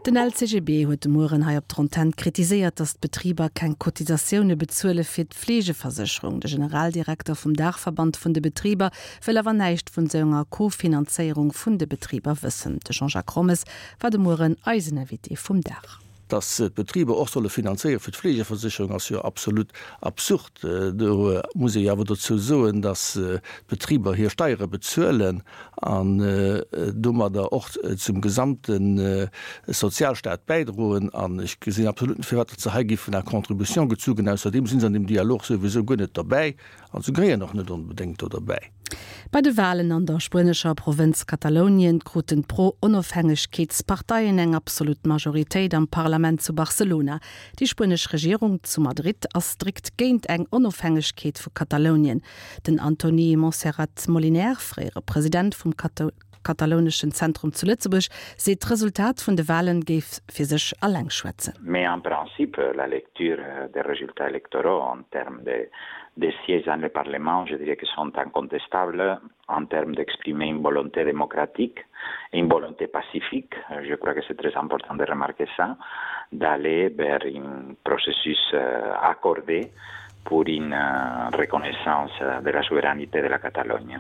Den LCGB huet de Mueren hei op der Antenn kritiséiert, datt d'Betriber keng Cotisatioune bezuele fir d'Fleegeversécherung. De Generaldirekter vum Daachverband vun de Betriber wëll awer näischt vun esou enger Kofinanzéierung vun de Betriber wëssen. De Jean-Jacques Rommes war de Mueren eisen Invité vum Dag. Datt d'Betriber och solle finanzéiere fir d'Fleegeversécherung ass jo absolut absurd. Do muss ee jo awer dozou soen, datt d'Betriber hir Steiere bezuelen an domadder och zum gesamte Sozialstaat bäidroen. An ech gesinn absolut net, firwat datt se hei géifen à contribution gezu ginn. Ausserdeem si se an deem Dialog souwisou guer net derbäi an se gehéieren och net onbedéngt do derbäi. Bei de Walen an der spuenescher Provënz Katalounien kruten d'Pro-Onofhängegkeetsparteien eng absolut Majoritéit am Parlament zu Barcelona. Déi spuenesch Regierung zu Madrid ass strikt géint eng Onofhängegkeet vu Katalounien. Den Antoni Montserrat Moliner, fréiere President vum Katalouneschen Zentrum zu Lëtzebuerg, seet d'Resultat vun de Walen géif fir sech alleng schwätzen. Mais en principe, la lecture des résultats électoraux en termes de de sièges dans le Parlement, je dirais que sont incontestables en termes d'exprimer une volonté démocratique et une volonté pacifique, je crois que c'est très important de remarquer ça, d'aller vers un processus euh, accordé pour une euh, reconnaissance de la souveraineté de la Catalogne.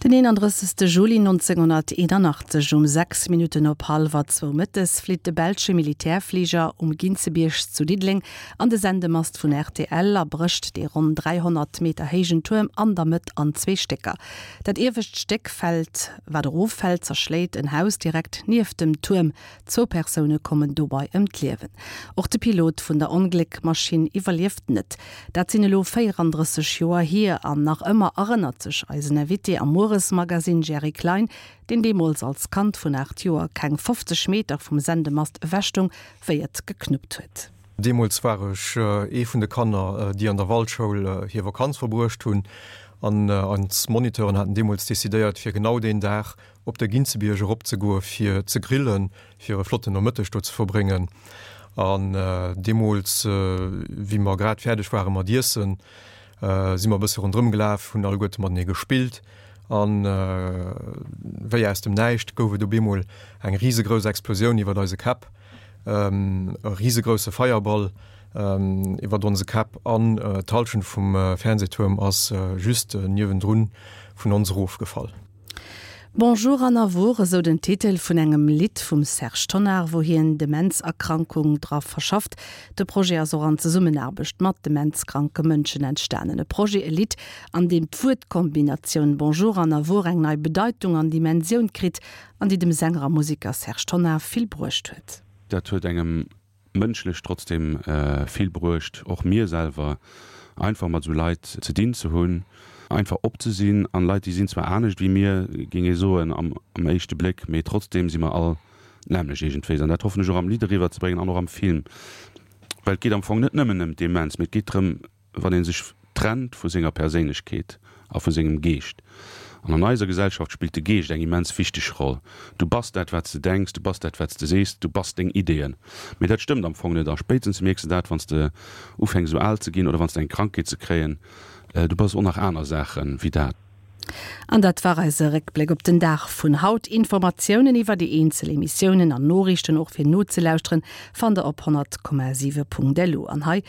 Den 31. Juli 1981 um 6 Minutten op hallwer zwou mëttes flitt de belsche Militärfliger um Ginzebierg zu Diddeleng an de Sendemast vun rtl a brécht dee ronn 300 Meter héijen Tuerm an der Mëtt an zwee Stécker. Dat iewescht Stéck fält, wat eroffält, zerschléit en Haus direkt nieft dem Tuerm. Zwou Persoune kommen dobei ëm d'Liewen. Och de Pilot vun der Ongléckmaschinn iwwerlieft net. Dat sinn elo 34 Joer hier an nach ëmmer erënnert sech eisen Invité am Mueresmagasinn Jerry Klein, deen deemools als Kand vun 8 Joer keng 50 Meter vum Sendemast ewech stoung, wéi et geknuppt huet. Deemools war ech ee vun de Kanner, déi an der Waldschoul hir Vakanz verbruecht hunn. An eis Moniteuren haten deemools decidéiert, fir genau deen Dag op de Ginzebierg erop ze goe fir ze grillen, fir e flotten Nomëtteg do ze verbréngen. An deemools, wéi mer grad fäerdeg ware mat iessen, si mer e bësse ronderëm gelaf, hunn alleguerte matenee gespillt. An wéi aus dem Näischt gouf et op eemol eng risegrouss Explosioun iwwert eise Käpp. E risegrousse Feierball iwwert onse Käpp an d'Hallschent vum Fernsehtuerm ass just niewendrun vun ons erofgefall. Bonjour an Awour, esou den Titel vun engem Lidd vum Serge Tonnar, wou hien Demenzerkrankung dra verschafft. De Projet ass och an Zesummenaarbecht mat demenzkranke Mënschen entstanen. E Projet, e Lidd, an deem d'Wuertkombinatioun Bonjour an Awour eng nei Bedeitung an Dimensioun kritt an déi dem Sänger a Museker Serge Tonnar vill bruecht huet. Dat huet engem mënschlech trotzdem vill bruecht, och mir selwer, einfach mat esou Leit ze dinn ze hunn, einfach op ze sinn an Leit, déi sinn zwar anescht wéi mir, géing ee soen am éischte Bléck, mee trotzdem si mer all d'nämmlecht iergendwéis an dat hoffen ech och am Lidd eriwwer ze bréngen an och am Film, well et geet am Fong net nëmmen ëm d'Demenz, mee et geet drëm, wann ee sech trennt vu senger Perséinlechkeet a vu sengem Geescht. An an eiser Gesellschaft spillt de Geescht eng immens wichteg Roll. Du bass dat, wat s de denks, du bass dat, wat s de sees, du bass deng Ideeën. Mee dat stëmmt am Fong net a spéitstens mierks de dat, wann s de ufänks esou al ze ginn oder wann s de eng Krankheet ze kréien. Du bass och nach aner Saache wéi dat. An dat war eise Réckbléck op den Dag vun haut. Informatiounen iwwer déi eenzel Emissiounen an Noriichten och fir nozelauschteren fannt der op 100,7.lu. An hei.